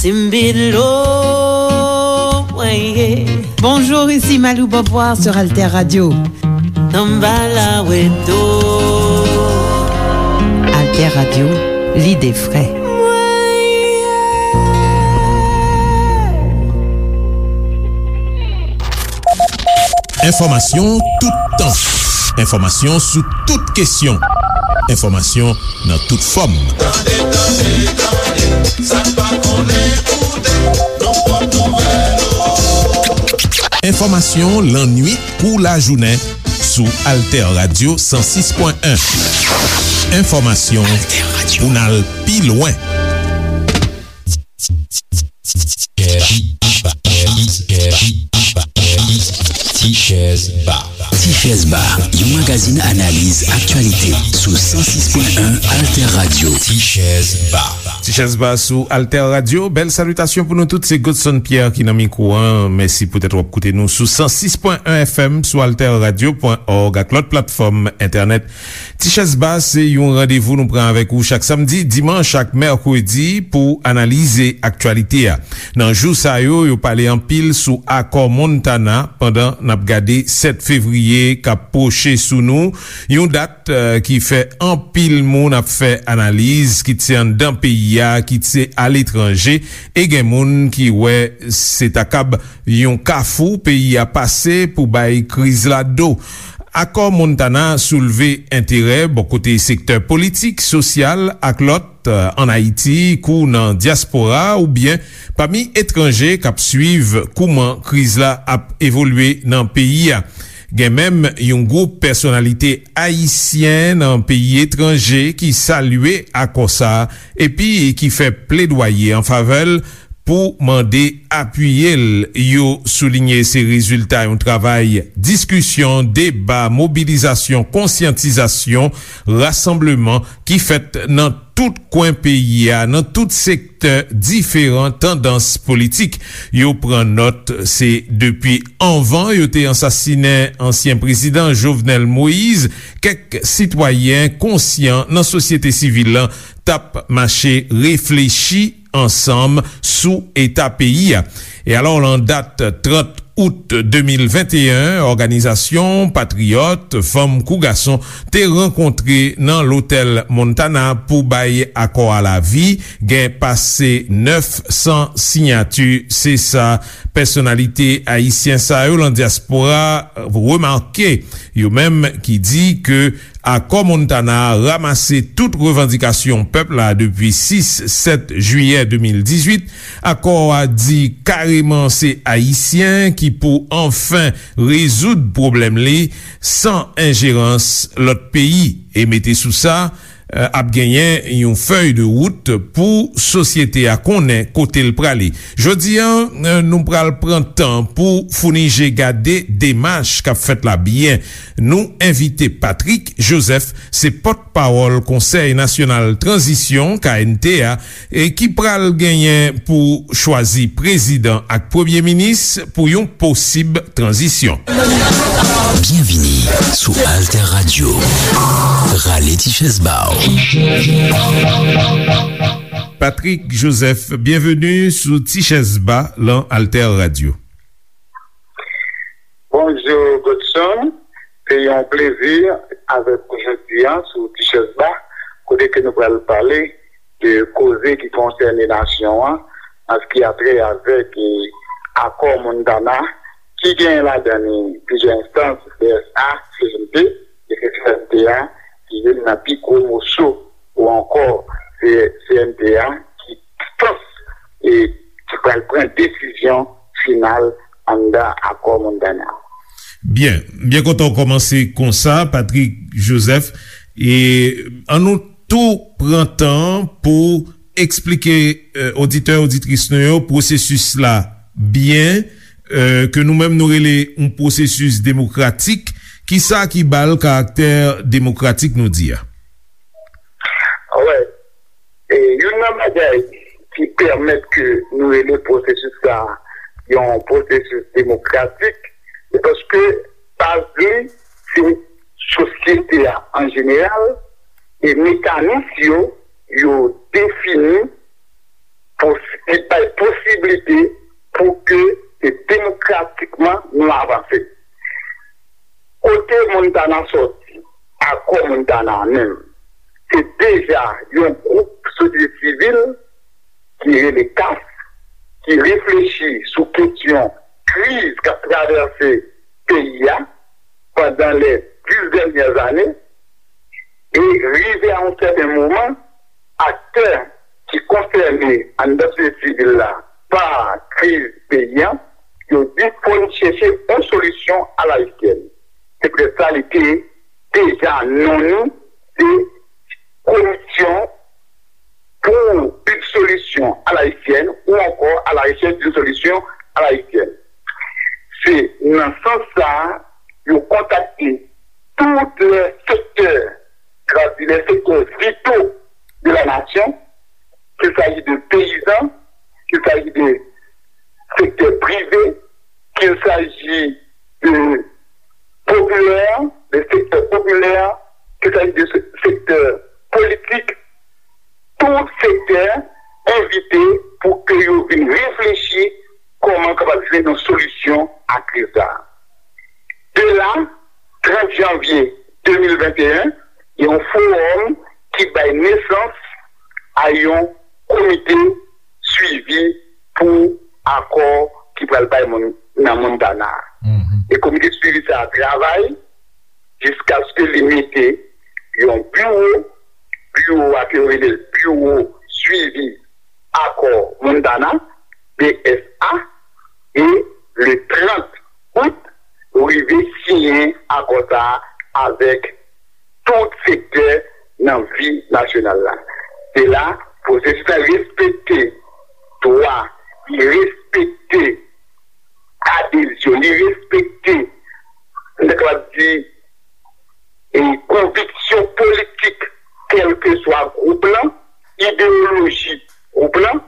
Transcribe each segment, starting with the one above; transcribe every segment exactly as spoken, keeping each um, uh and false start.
Timbilo, mwen ye. Bonjour, ici Malou Beauvoir sur Alter Radio. Samba la weto. Alter Radio, lide fre. Enfòmasyon toutan. Enfòmasyon sou tout kesyon. Enfòmasyon nan tout fòm. Tande, tande, tande, sa n pa konnen koute, nan pòt nouvèl ou. Enfòmasyon lannwit kou lajounen sou Alter Radio san sis pwen en. Enfòmasyon pou n al pi lwen. Tichèz Ba. Tichèz Ba, yon magazin analiz aktyalite sou san sis pwen en Alter Radio. Tichèz Ba. Tichèz Ba sou Alter Radio. Bèl salitasyon pou nou tout. Se Godson Pierre ki nan mikwo a. Mèsi poutèt w ap koute nou sou san sis pwen en F M, sou alter radio pwen org ak lòt platfòm entènèt. Tichèz Ba se yon randevou nou pran avèk ou chak samdi, dimanch ak mèkredi pou analize aktyalite a. Nan jou sa yo, yo pale anpil sou akò Montana pandan n ap gade sèt fevriye k ap pwoche sou nou, yon dat, eh, ki fè anpil moun ap fè analiz, kit se anndan peyi a, kit se aletranje, e gen moun ki wè se ta kab yon kafou peyi a pase pou bay kriz la do. Akò Montana soulve enterè bò kote sektè politik, sosyal ak lòt, eh, ann Ayiti, kou nan dyaspora oubyen pami etranje k ap swiv kouman kriz la ap evolye nan peyi a. Gen menm yon gwoup pèsonalite ayisyen nan peyi etranje ki salye akò sa a epi ki fè pledwaye an favè l pou mande apiye l. Yo soulinye se rezilta yon travay diskisyon, deba, mobilizasyon, konsyantizasyon, rasanbleman ki fèt nan tout kwen peyi a, nan tout sektè diferan tandans politik. Yo pran nòt, se depi anvan yo te ansasinen ansyen prezidan Jovenel Moïse, kèk sitwayen konsyan nan sosyete sivil lan t ap mache reflechi ansanm sou eta peyi a. E alò, lan dat trant out de mil venteyen, òganizasyon patriyòt, fanm kou gason, te rankontre nan Lotèl Montana pou bay akò a lavi. Gen pase nèf san siyati. Se sa pèsonalite ayisyen sa yo lan dyaspora remake. Yo menm ki di ke Akò Montana a ranmase tout revandikasyon pèp la depi sis, sèt jiyè de mil dizuit. Akò a di kareman se Ayisyen ki pou anfen rezoud pwoblèm li san enjerans lòt peyi. E mete sou sa, eh, ap genyen yon fèy de wout pou sosyete a konnen kote l prale. Jodi a, eh, nou pral pran tan pou founi je gade demach k ap fèt la byen. Nou envite Patrick Joseph, se pòtpawòl Konsèy Nasyonal Tranzisyon, K N T, a, e ki pral genyen pou chwazi prezidan ak premye minis pou yon posib tranzisyon. Byenvini sou Alter Radio. Rale ti chèz ba w. Patrick Joseph, byenveni sou Ti Chèz Ba lan Alter Radio. Bonjou, Godson. Se yon plezi avèk ou jodi a sou Ti Chèz Ba, kote ke nou pral pale de koze ki konsène nasyon an, an sa ki a trè avèk, e, akò Montana, ki gen ladan li plizyè enstans, C S A, C N T, e se C N T a ki youn nan pi gwo moso, ou ankò se C N T a ki enstans, e, ki pral pran desizyon final anndan akò Montana. Byen, byen kontan w kòmanse konsa, Patrick Joseph. E ann nou tou pran tan pou eksplike, eh, oditè, oditris nou yo pwosesis la byen, eh, ke nou menm nou rele yon pwosesis demokratik. Kisa ki ba l karaktè demokratik nou di a? Wè, e youn nan bagay ki pèmèt ke nou rele pwosesis sa a yon pwosesis demokratik, se paske baz li se sosyete a an jeneral, e mekanis yo, yo defini pou, ki bay Montana sòti, akò Montana a menm, se deja yon gwoup sosyete sivil ki rele CAF, ki reflechi sou kesyon kriz k ap travèse peyi a pandan les dix dernières années, e rive a yon sèten moman, aktè ki konsène anndan sosyete sivil la pa kriz peyi a, yo di fò n chèche yon solisyon alayisyèn. Se poutèt sa li te deja non li se Komisyon pour une solution à l'haïtienne ou encore à la recherche d'une solution à l'haïtienne. Se nan sans sa a, yo kontakte tout les secteurs, c'est-à-dire les secteurs vitaux de la nation, qu'il s'agit de paysans, qu'il s'agit de secteur privé, qu'il s'agit de populaire, de secteur populaire, qu'il s'agit de se- secteur politique, tout sektè envite pou ke yo vin reflechi kòman kapab jwenn yon solisyon a kriz la. De la, trant janvye de mil venteyen, gen yon fowòm ki bay nesans a yon komite swivi pou akò ki pral bay moun nan Montana a. E komite swivi sa a travay jiskaske li mete yon biwo, biwo a ke yo rele l biwo swivi akò Montana, B S A, e le trant out, rive siyen akò sa a avèk tout sektè nan vi nasyonal la. Se la, pwosesis la respekte dwa, li respekte adezyon, li respekte, m ta kapab di, e konviksyon politik, kèlkeswa gwoup lan, ideyoloji gwoup lan,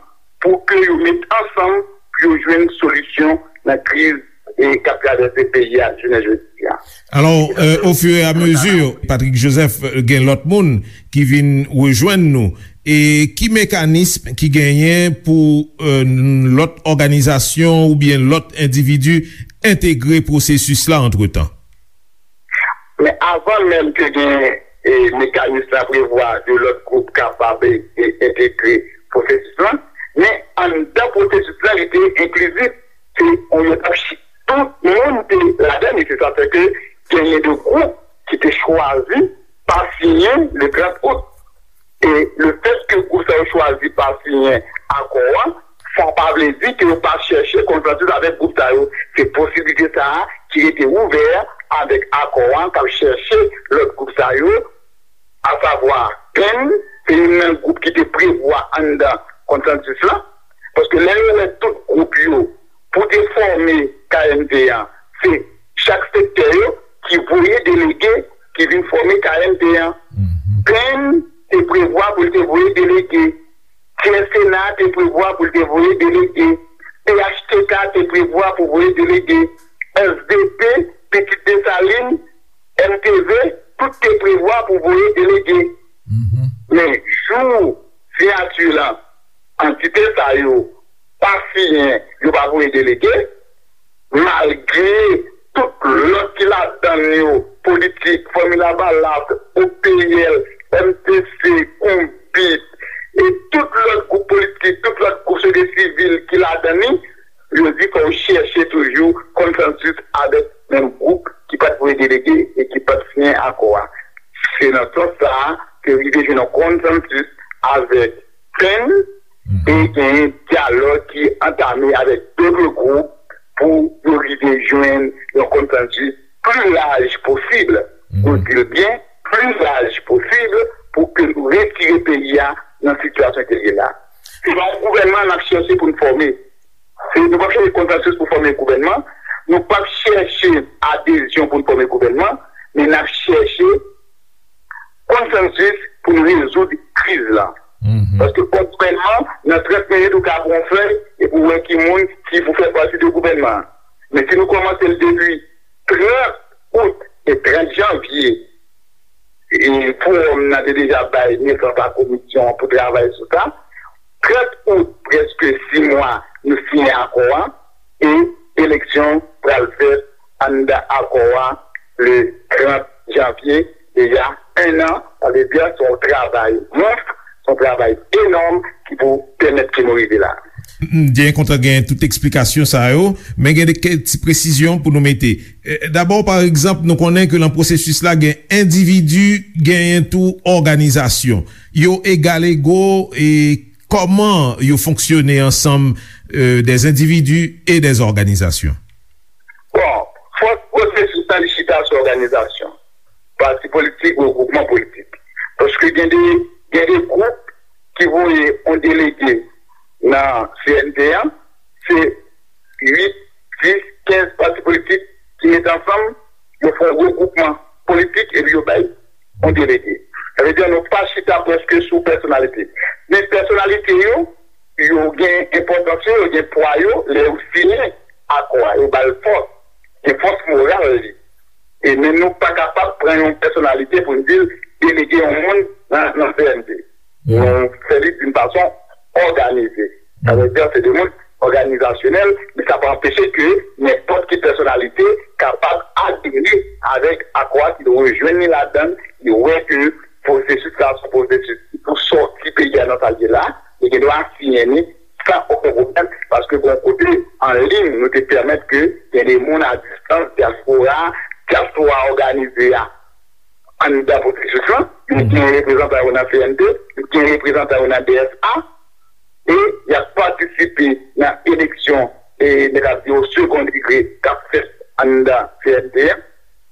pou ke yo met ansanm pou yo jwenn solisyon nan kriz e k ap travèse peyi a jounen jodi a. Alò, euh, au fur et à mesure, Patrick Joseph, euh, gen lòt moun ki vin rejwenn nou. E ki mekanism ki genyen pou euh, lòt òganizasyon oubyen lòt endividi entegre pwosesis la antretan? Men avan menm ke gen e, mekanis la prevwa de lòt gwoup kapab e, e, entegre pwosesis lan, men anndan pwosesis lan li te enklizif. Se yon etap chi- tout moun te ladan li. Se sa fè ke genyen de gwoup ki te chwazi pa siyen le trant out. E lefètke gwoup sa yo chwazi pa siyen akò an, sa pa vle di ke yo pa chèche konsansis avèk gwoup sa yo. Se posiblite sa a ki rete ouvè avèk akò an k ap chèche lòt gwoup sa yo, asavwa Penn, se youn nan gwoup ki te prevwa anndan konsansis lan. Paske lè yo wè tout gwoup yo pou te fòme K M T an, se chak sektè yo ki voye delege ki vin fòme K M T an. Penn te prevwa pou l te voye delege. Tyè Sena te prevwa pou l te voye delege. P H T K te prevwa pou voye delege. S D P, Pitit Desalin, M T V, tout te prevwa pou voye delege. Men jou siyati lan, antite sa yo pa siyen, yo pa voye delege, malgre tout lòt ki ladan yo, Politik, Fanmi Lavalas, O P L, M T C, Konbit, e tout lòt gwoup politik, tout lòt gwoup sosyete sivil ki ladan li, yo di fò yo chèche toujou konsansis avèk menm gwoup ki pa t voye delege e ki pa t siyen akò a. Se nan sans sa a ke rive jwenn yon konsansis avèk Penn e genyen dyalòg ki antame avèk dòt gwoup pou yo rive jwenn yon konsansis pli laj posib. Nou di l byen, pli laj posib pou ke nou retire peyi a nan sitiyasyon ke l ye la. Se pa yon gouvènman n ap chèche pou n fòme. Se, nou p ap chèche konsansis pou fòme gouvènman. Nou p ap chèche adezyon pou n fòme gouvènman. Men n ap chèche konsansis pou n rezoud kriz la. Paske fòk gouvènman, nan trant minit, ou ka pran yon fèy epi w wè ki moun ki pou fè pati de gouvènman an. Men si nou kòmanse l depi trant out e trant janvye, e fowòm nan te deja bay nesans a komisyon an pou travay sou sa. Trant out, prèske sis mwa, nou siyen akò a, e eleksyon pral fèt anndan akò a le trant janvye, deja en an, sa vle di se yon travay mons, se yon travay enòm ki pou pèmèt ke nou rive la. M byen kontan gen tout eksplikasyon sa yo, men gen de kèk ti presizyon pou nou mete. Eh, dabò, pa egzanp, nou konnen ke nan pwosesis la, gen endividi, genyen tou òganizasyon. Yo egal ego, e kòman yo fonksyone ansanm, eh, des individus et des organisations? Bon, fòs pwosesis la, li chita sou òganizasyon. Pati politik, regwoupman politik. Paske gen de, gen de gwoup ki voye yon delege nan C N T an, se uit, dis, kenz pati politik ki met ansanm, yo fè yon regwoupman politik epi yo bay yon delege. Sa vle di nou pa chita prèske sou pèsonalite. Men pèsonalite yo, yo gen enpòtans yo, yo gen pwa yo, lè yo siyen akò a, yo ba l fòs, gen fòs moral li. E men nou pa kapab pran yon pèsonalite pou n di l delege yon moun nan, nan C N T. Nou fè li d'une façon organisée. Sa vle di se de moun òganizasyonèl, men sa pa anpeche ke nenpòt ki pèsonalite kapab adere avèk akò a, ki rejwenn li ladan l, ki wè ke pwosesis la se yon pwosesis ki pou sòti peyi a nan sa l ye la, li gen dwa siyen li san okenn pwoblèm, paske gen yon kote an liy nou te pèmèt ke gen de moun a distans, dyaspora, dyaspora òganize a anndan pwosesis lan, yo gen reprezantan yo nan C N T, yo gen reprezantan yo nan D S A, e y ap patisipe nan eleksyon, e nèg ap di yo second degré k ap fèt anndan C N T an,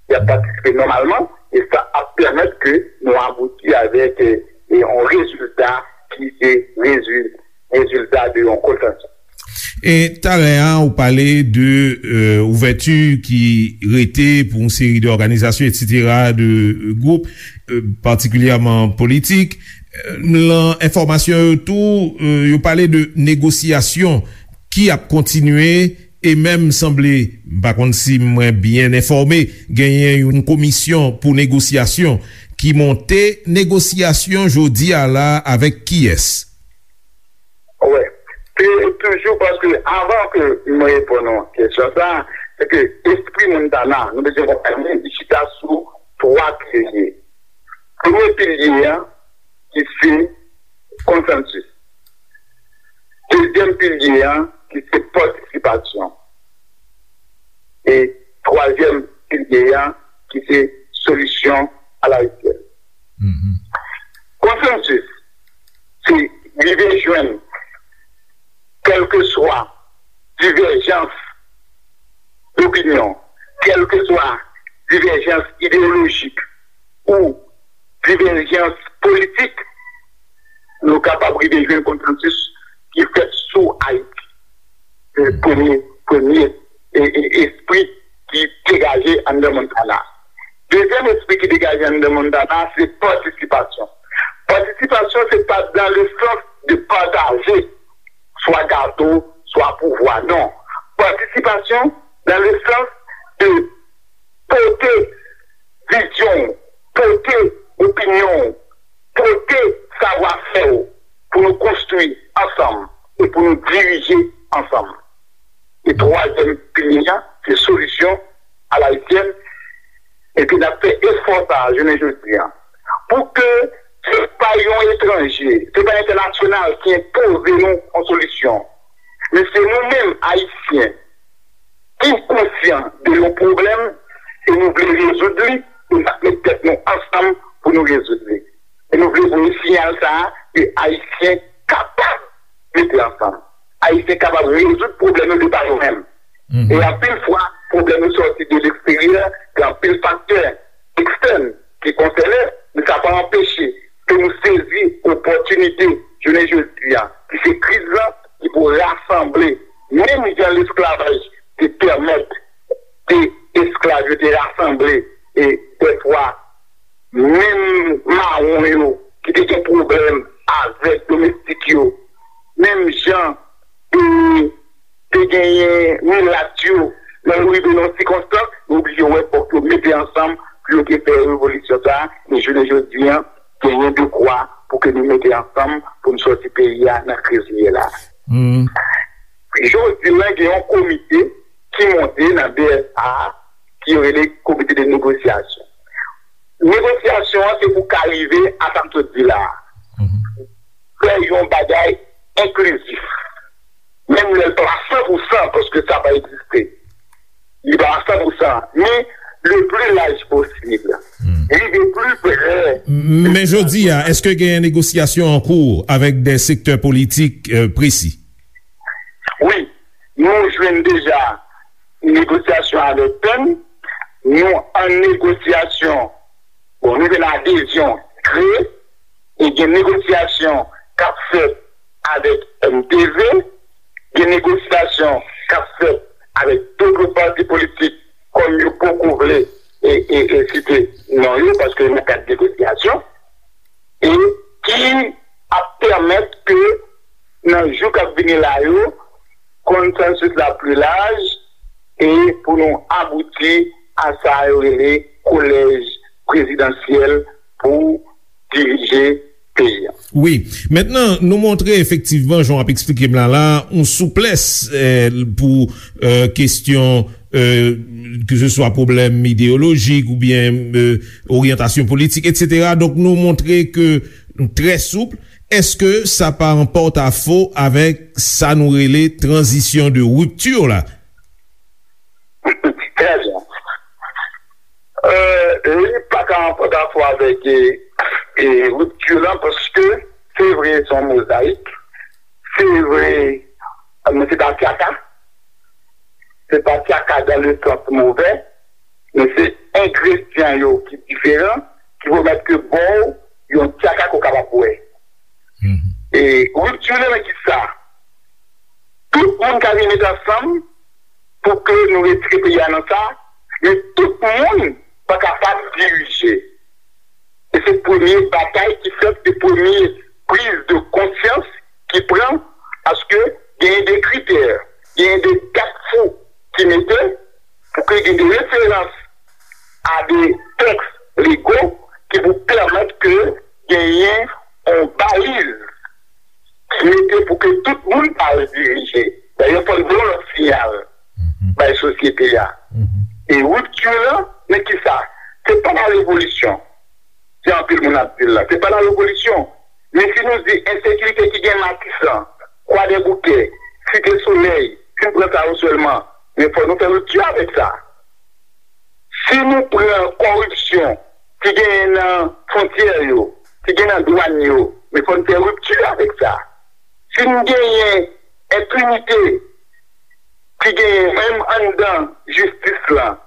y ap patisipe nòmalman, e sa ap pèmèt ke nou abouti avèk, e, e yon rezilta ki se rezil-, rezilta de yon konsansis. E talè a, ou pale de, euh, ouvèti ki rete pou yon seri de òganizasyon, et cetera, de, euh, gwoup, euh, patikilyèman politik. Euh, lan enfòmasyon yo tou, euh, yo pale de negosyasyon ki ap kontinye e menm sanble, m pa konn si mwen byen enfòme, genyen yon komisyon pou negosyasyon ki monte. Negosyasyon jodi a la avèk kiyès? Wè. Se toujou paske avan ke mwen reponn yon kesyon sa, se ke espri Montana, nou bezwen konprann li, li chita sou twa pilye. Premye pilye a, ki se konsansis. Dezyèm pilye a, ki se patisipasyon. E twazyèm pilye a, ki se solisyon alayisyèn. Konsansis, se rive jwenn kèlkeswa divèjans dopinyon, kèlkeswa divèjans ideyolojik ou divèjans politik, nou kapab rive jwenn konsansis ki fèt sou Ayiti. Se premye, premye e, e, espri ki degaje anndan Montana. Dezyèm espri ki degaje anndan Montana, se patisipasyon. Patisipasyon, se pa dans le sens de pataje swa gato, swa pouvwa, non. Patisipasyon dans le sens de pote vizyon w, pote opinyon w, pote savwafè w pou nou konstwi ansanm e pou nou dirije ansanm. E twazyèm pilye a, se solisyon alayisyèn. Epi n ap fè efò sa a jounen jodi a. Pou ke se pa yon etranje, se pa entènasyonal ki enpoze nou yon solisyon. Men se nou menm, Ayisyen, ki konsyan de yon pwoblèm e nou vle rezoud li, e n ap met tèt nou ansanm pou nou rezoud li. E nou vle voye siyal sa a ke Ayisyen kapab mete ansanm. Ayisyen kapab rezoud pwoblèm yo de pa yo menm. E anpil fwa, pwoblèm yo sòti de leksteryè, gen anpil faktè ekstèn ki konsène, men sa pa anpeche ke nou sezi opòtinite jounen jodi a, ki se kriz lan, ki pou rasanble, menm jan lesklavaj te pèmèt de esklav yo te rasanble, e dèfwa, menm mawon yo ki te gen pwoblèm avèk domestik yo, menm jan, e, te genyen milat yo, lè yo rive nan sikonstans, yo oblije wè fòk yo mete ansanm pou yo te fè revolisyon sa a, men jounen jodi a, genyen dekwa pou ke nou mete ansanm pou n sòti peyi a nan kriz li ye la. Jodi la, gen yon komite ki monte nan D S A ki yo rele Komite de Negosyasyon. Negosyasyon an se pou ka rive a sa m sot di la a. Fè yon bagay enklizif. Menm lè l pa san pou san, paske sa pa egziste. Li pa san pou san, men le pli laj posib. Rive pli pre. Men jodi a, èske genyen negosyasyon an kou avèk de sektè politik, euh, presi? Wi, nou jwenn deja negosyasyon avèk P E N, nou an negosyasyon, bon, nou jwenn adezyon kle, e gen negosyasyon k ap fèt avèk M T V, gen negosyasyon k ap fèt avèk tout lòt pati politik, kòm yo poko vle e, e, e site non yo, paske nan kad negosyasyon, e ki ap pèmèt ke nan jou k ap vini la yo, konsansis la pli laj, e pou nou abouti a sa yo rele kolèj prezidansyèl pou dirije peyi a. Wi. Mentnan, nou montre efektivman, jan w ap eksplike m la, la, yon souplès, eh, pou, eh, kesyon, eh, ke se swa pwoblèm ideyolojik oubyen, eh, oryantasyon politik, etsetera. Donk, nou montre ke nou trè soup. Èske sa pa an pòtafo avèk sa nou rele tranzisyon de ripti la? Trè byen. Euh, li pa ka an pòtafo avèk, e, e, ripti lan, paske se vre, se yon mozayik. Se vre, men se pa tyaka. Se pa tyaka dan le sans movè, men se engredyan yo ki diferan, ki pèmèt ke ba w yon tyaka ke w kapab bwè. E ripti lan nan ki sa? Tout moun ka vin met ansanm pou ke nou retire peyi a nan sa, men tout moun pa kapab dirije. E se premye batay ki fèt, se premye priz de konsyans ki pran, paske genyen de kritè, genyen de gafou ki mete pou ke gen de referans a de tèks lego ki pou pèmèt ke genyen yon baliz ki mete pou ke tout moun pa al dirije. Dayè, fò n voye yon lòt siyal bay sosyete a. E ripti lan, men ki sa? Se pa la revolisyon. Jan anpil moun ap di l la. Se pa la revolisyon. Men si nou di ensekirite ki gen Matisan, Kwadèboukè, Site Solèy, si n pran sa yo sèlman, men fò nou fè ripti avèk sa. Si nou pran kòripsyon ki genyen nan fwontyè yo, ki gen nan dwàn yo, men fò n fè ripti avèk sa. Si n genyen enpinite ki genyen menm anndan jistis lan,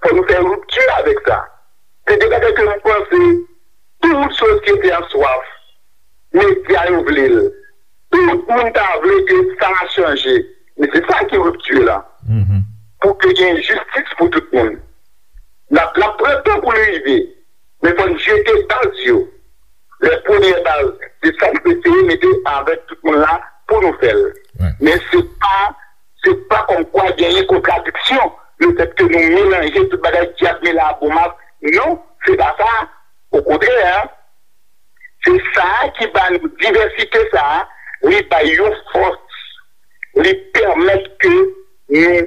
fò nou fè ripti avèk sa. Se de bagay ke m panse tout sosyete an swaf, medya yo vle l. Tout moun ta vle ke sa a chanje. Men se sa ki ripti lan. Pou ke gen jistis pou tout moun. L ap, l ap pran tan pou l rive. Men fò n jete baz yo. Lè premyè baz, se sa n eseye mete avèk tout moun la pou nou fè l. Men se pa, se pa kòmkwa genyen kontradiksyon, lefètke nou melanje tout bagay, dyab mele a bon mak. Non, se pa sa. Okontrè, se sa a ki ba nou divèsite sa a, li bay yon fòs, li pèmèt ke nou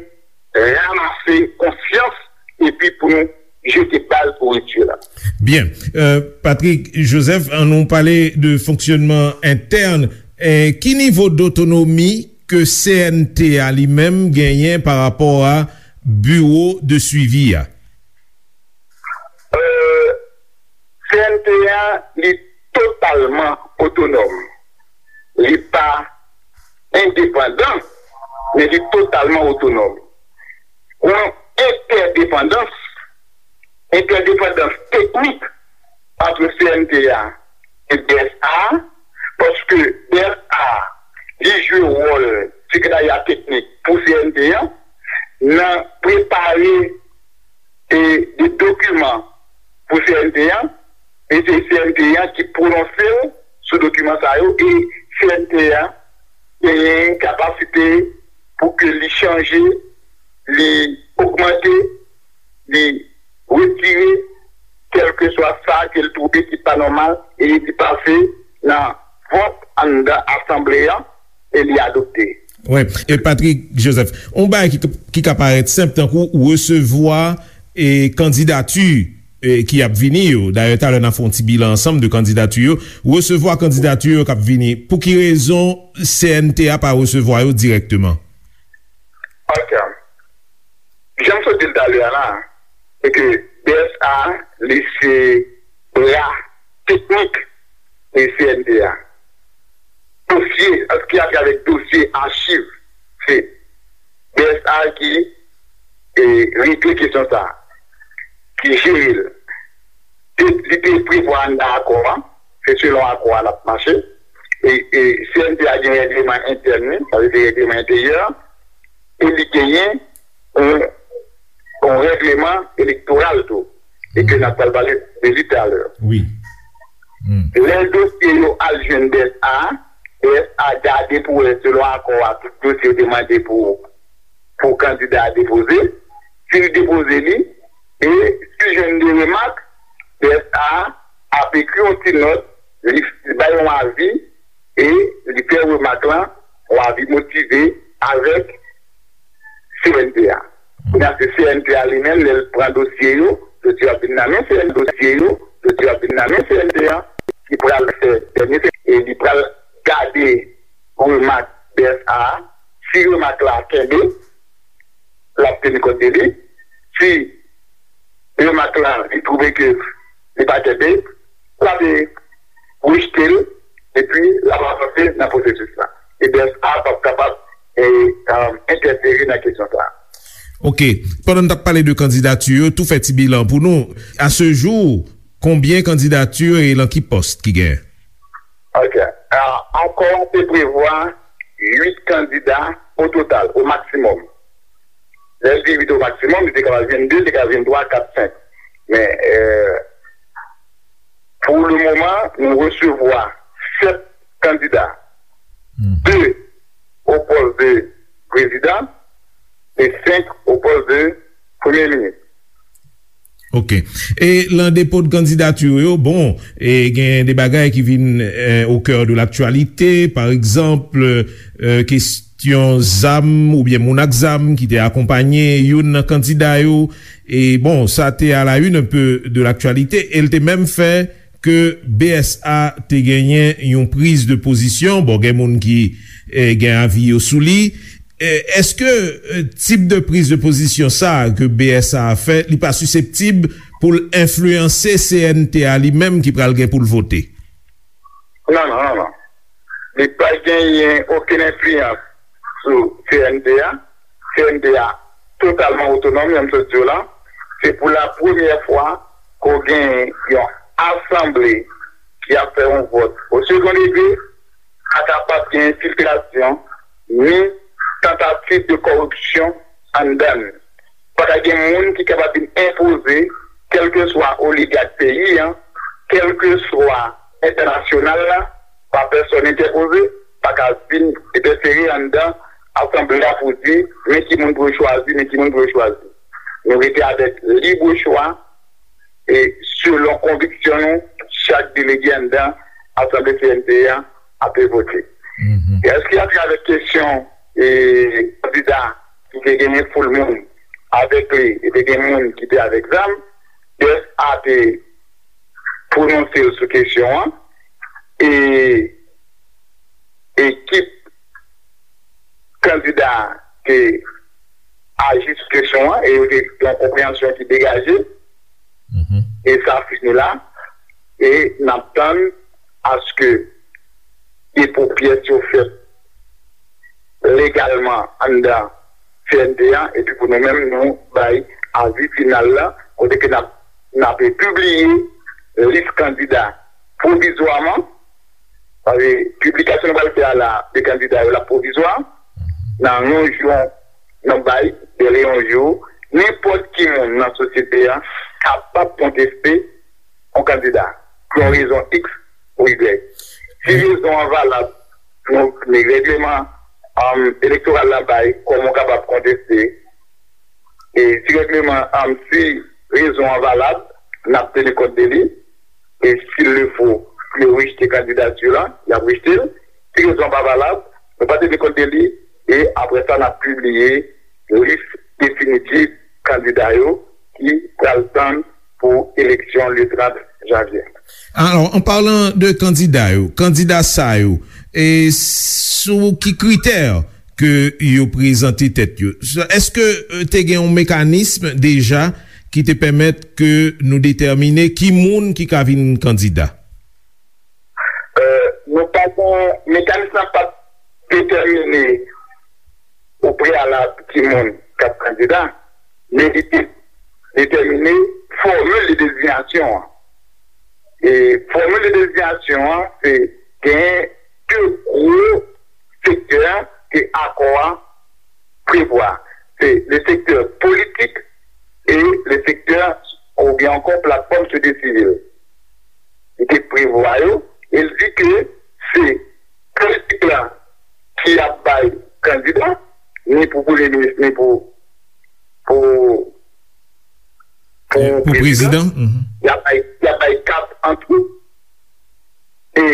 ranmase konsyans epi pou nou jete baz pou ripti lan. Byen. Euh, Patrick Joseph, ann nou pale de fonksyònman entèn. Eh, ki nivo dotonomi ke C N T A li menm genyen pa rapò a biwo de swivi a? Euh, C N T A, li totalman otonòm. Li pa endepandan, men li totalman otonòm. Gon entèdepandans, entèdepandans teknik ant C N T A e D S A, paske D S A, li jwe wòl sekretarya teknik pou C N T A nan prepare e de dokiman pou C N T A, e se C N T A ki pwononse l sou dokiman sa yo, e C N T A genyen kapasite pou ke li chanje, li ogmante, li retire, kèlkeswa sa ke l twouve ki pa nòmal, e li pase nan vòt anndan asanble a, e li adopte. Wi, e Patrick Joseph, yon bagay ki, ki ka parèt senp, tankou resevwa e kandidati e, ki ap vini yo. Dayè, talè n a fè yon ti bilan ansanm de kandidati yo. Resevwa kandidati yo k ap vini. Pou ki rezon C N T A pa resevwa yo dirèkteman? Ok. Jan m sot di l talè a la, se ke B S A, li se bra teknik e C N T A. Dosye, an ki atravè dosye achiv, se B S A ki, e, regle kesyon sa a, ki jere l. Te, li te prevwa anndan akò a, se selon akò a l ap mache. E, e C N T A gen règleman entèn li, sa vle di règleman enteryè, e li genyen yon, yon règleman elektoral tou, e ke n ap pral pale de li talè. Wi. Hmm. Lè dosye yo al jwenn B S A, B S A gade pou wè selon akò a tout dosye yo te mande pou, pou kandida a depoze. Si li depoze li, e si jwenn de remak, B S A ap ekri yon ti nòt, li, li bay yon avi, e li fè remak lan, yon avi motive avèk C N T A. Kounye a, se C N T A li menm, lè l pran dosye yo, dosye yo ap vin nan men C N T A, dosye yo, dosye yo ap vin nan men C N T A, ki pral fè dènye, e li pral gade remak B S A a. Si remak la kenbe, l ap teni kont de li. Si remak lan, li twouve ke li pa kenbe, l ap rejte l, epi l ap avanse nan pwosesis la. E B S A p ap kapab, e, e, entèfere nan kesyon sa a. Ok. Pandan n t ap pale de kandidati yo, tou fè ti bilan pou nou. A ce jour, konbyen kandidati e lan ki pòs ki genyen? Ok. A, akò a te prevwa uit kandida o total, o maksimòm. Lè l di uit o maksimòm, li te ka vin de, li te ka vin twa, kat, senk. Men, e, pou le moman, nou resevwa sèt kandida. Hmm. De o pòs de prezidan e senk o pòs de premye minis. Ok. E lan depo de kandidati yo, bon, e gen de bagay ki vin, e, au cœur de l'actualité, pa egzanp, e, kesyon zam oubyen moun ak zam ki te akonpanye youn nan kandida yo. E bon, sa te à la une un peu de l'actualité, e l te menm fè ke B S A te genyen yon priz de pozisyon. Bon, gen moun ki, e, gen avi yo sou li. E, èske, e, tip de priz de pozisyon sa a ke B S A a fè, li pa siseptib pou l enfliyanse C N T A li menm ki pral gen pou l vote? Non, non, non, non. Li pa genyen okenn enfliyans sou C N T A. C N T A totalman otonòm, jan m sot di w la. Se pou la premyè fwa ke w gen yon asanble ki ap fè yon vòt o second degré, pa kapab gen enfiltrasyon, ni tantativ de kòripsyon anndan l. Pa ka gen moun ki kapab vin enpoze, kèlkeswa oligak peyi a, kèlkeswa entènasyonal la, pa pèsòn entèpoze, pa ka vin entèfere anndan asanble a pou di, men ki moun pou yo chwazi, men ki moun pou yo chwazi. Nou rete avèk lib chwa, e selon konviksyon nou, chak delege anndan asanble C N T A ap vote. Mhm. E èske atravè kesyon, e, kandida ki te genyen foul moun avèk li, e te gen moun ki te avèk zam, B S A te pwononse l sou kesyon an, e ekip kandida te aji sou kesyon an, e yo te gen yon konpreyansyon ki degaje, mhm, e sa fini la, e n ap tann aske depo pyès yo fèt legalman anndan C N T A, epi pou nou menm, nou bay avi final la, kote ke n ap, n ap pibliye lis kandida pwovizwaman, paske piblikasyon nou pral fè a la, de kandida yo la pwovizwa, nan yon jou, n ap bay, dèlè yon jou, nenpòt ki moun nan sosyete a kapab konteste yon kandida, pou yon rezon X ou Y. Si rezon an valab, nou, men règleman, um, elektoral la bay, kòman w kapab konteste. E si règleman, um, si rezon an valab, n ap teni kont de li. E s'il le faut, pou yo rejte kandidati la, y ap rejte l. Si rezon an pa valab, nou pa teni kont de li. E apre sa, n ap pibliye lis definitif kandida yo ki pral tann pou eleksyon le trant janvye. Alò, an palan de kandida yo, kandida sa yo, e sou ki kritè ke yo prezante tèt yo? Èske, e, te gen yon mekanism deja ki te pèmèt ke nou detèmine ki moun ki ka vin kandida? E, nou pa gen, mekanism nan pa t detèmine o preyalab ki moun k ap kandida, men li te detèmine fòmil de dezinyasyon an. E fòmil de dezinyasyon an, se gen de gwo sektè ke akò a prevwa. Se le sektè politik e le sektè oubyen ankò platfòm sosyete sivil. Li te prevwa yo e l di ke se politik la ki ap bay kandida, ni pou premye minis, ni pou, pou, pou prezidan. Y ap bay, y ap bay kat an tou. E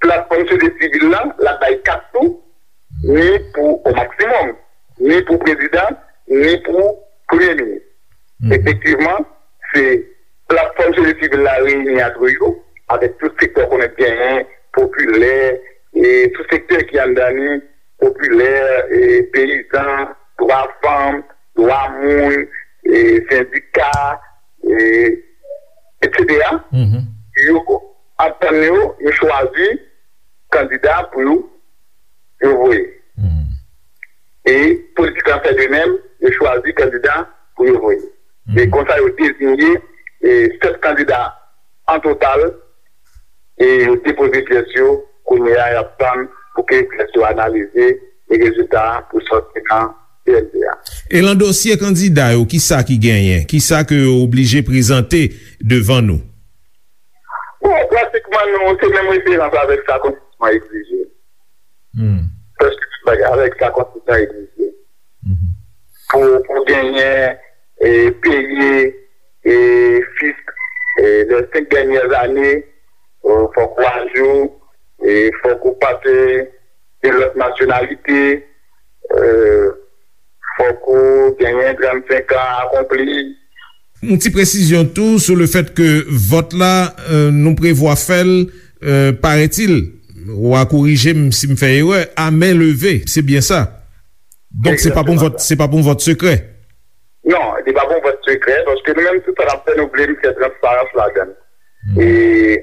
platfòm sosyete sivil la, l ap bay kat tou, ni pou o maksimòm, ni pou prezidan, ni pou premye minis. Efektivman, se platfòm sosyete sivil la reyini antre yo, avèk tout sektè w konnen genyen, popilè, e tout sektè ki anndan li, popilè, e peyizan, dwa fanm, dwa moun, e sendika, e etsetera, yo antann yo, yo chwazi kandida pou yo, yo voye. E politik la fè de menm, yo chwazi kandida pou yo voye. E konsa, yo deziye, e, sèt kandida an total, e yo depoze pyès yo, kounye a, y ap tann pou ke pyès yo analize, e rezilta a pou sòti nan C N P a. E lan dosye kandida yo, kisa ki genyen? Kisa ke yo oblije prezante devan nou? Bon, pratikman, nou, se menm referans avèk sa konstitisyon an egzije. Prèske tout bagay avèk sa konstitisyon an egzije. Pou, pou genyen, e, peye, e, fisk, e, les cinq dernières années, e, fòk ou ajou, e, fòk ou pa te de lòt nasyonalite, e, fòk ou genyen trannsenk an akonpli. Yon ti presizyon tou sou le fèt ke vòt la, e, nou prevwa fè l, e, parètil, w a korije m si m fè erè, a men leve, se byen sa? Donk, se pa pou yon vòt, se pa pou yon vòt sekrè? Non, li pa pou yon vòt sekrè, paske nou menm, tout sa n ap fè, nou vle mete transparans ladan l. E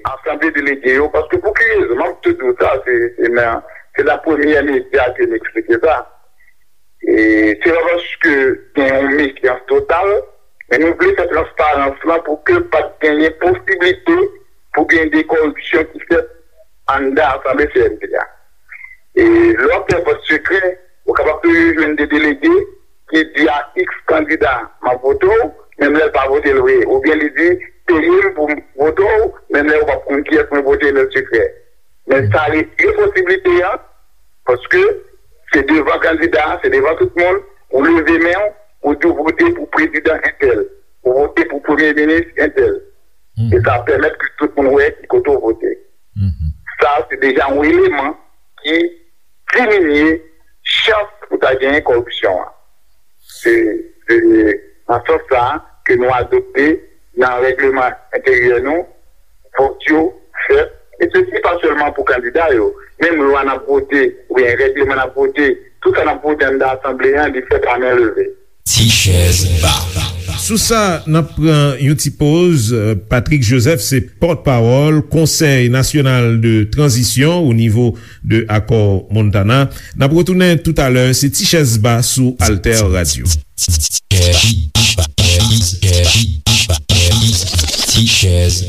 asanble delege yo, paske pou ki rezon, m ap tou di w sa, se, se nan, se nan premyè medya ke m eksplike sa. E se pa paske gen yon mefyans total, men nou vle fè transparans lan pou ke pa t genyen posiblite pou gen de kòripsyon ki fèt anndan asanble C N P a. E lè w ap fè vòt sekrè, ou kapab toujou jwenn de delege ki di a X kandida, "M ap vote w," menm lè l pa vote l vre. Oubyen li di, "Peye m pou m vote w," menm lè ou p ap konn kiyès mwen vote nan sekrè. Men sa retire posiblite a, paske se devan kandida, se devan tout moun, ou leve men w, ou di w vote pou prezidan entèl, ou vote pou premye minis entèl. E sa pèmèt ke tout moun wè ki kote w vote. Sa, se deja yon eleman ki diminye chans pou ta genyen kòripsyon an. Se, se nan sans sa a ke nou adopte nan règleman enteryè nou, vòt yo fèt, e sesi pa sèlman pou kandida yo, menm lwa n ap vote, oubyen règleman n ap vote, tout sa n ap vote anndan asanble a, li fèt a men leve. Ti chèz ba. Sou sa, n ap pran yon ti poz. Patrick Joseph se pòtpawòl Konsèy Nasyonal de Tranzisyon o nivo de Akò Montana. N ap retounen toutalè, se Ti Chèz Ba sou Alter Radio. Ti Chèz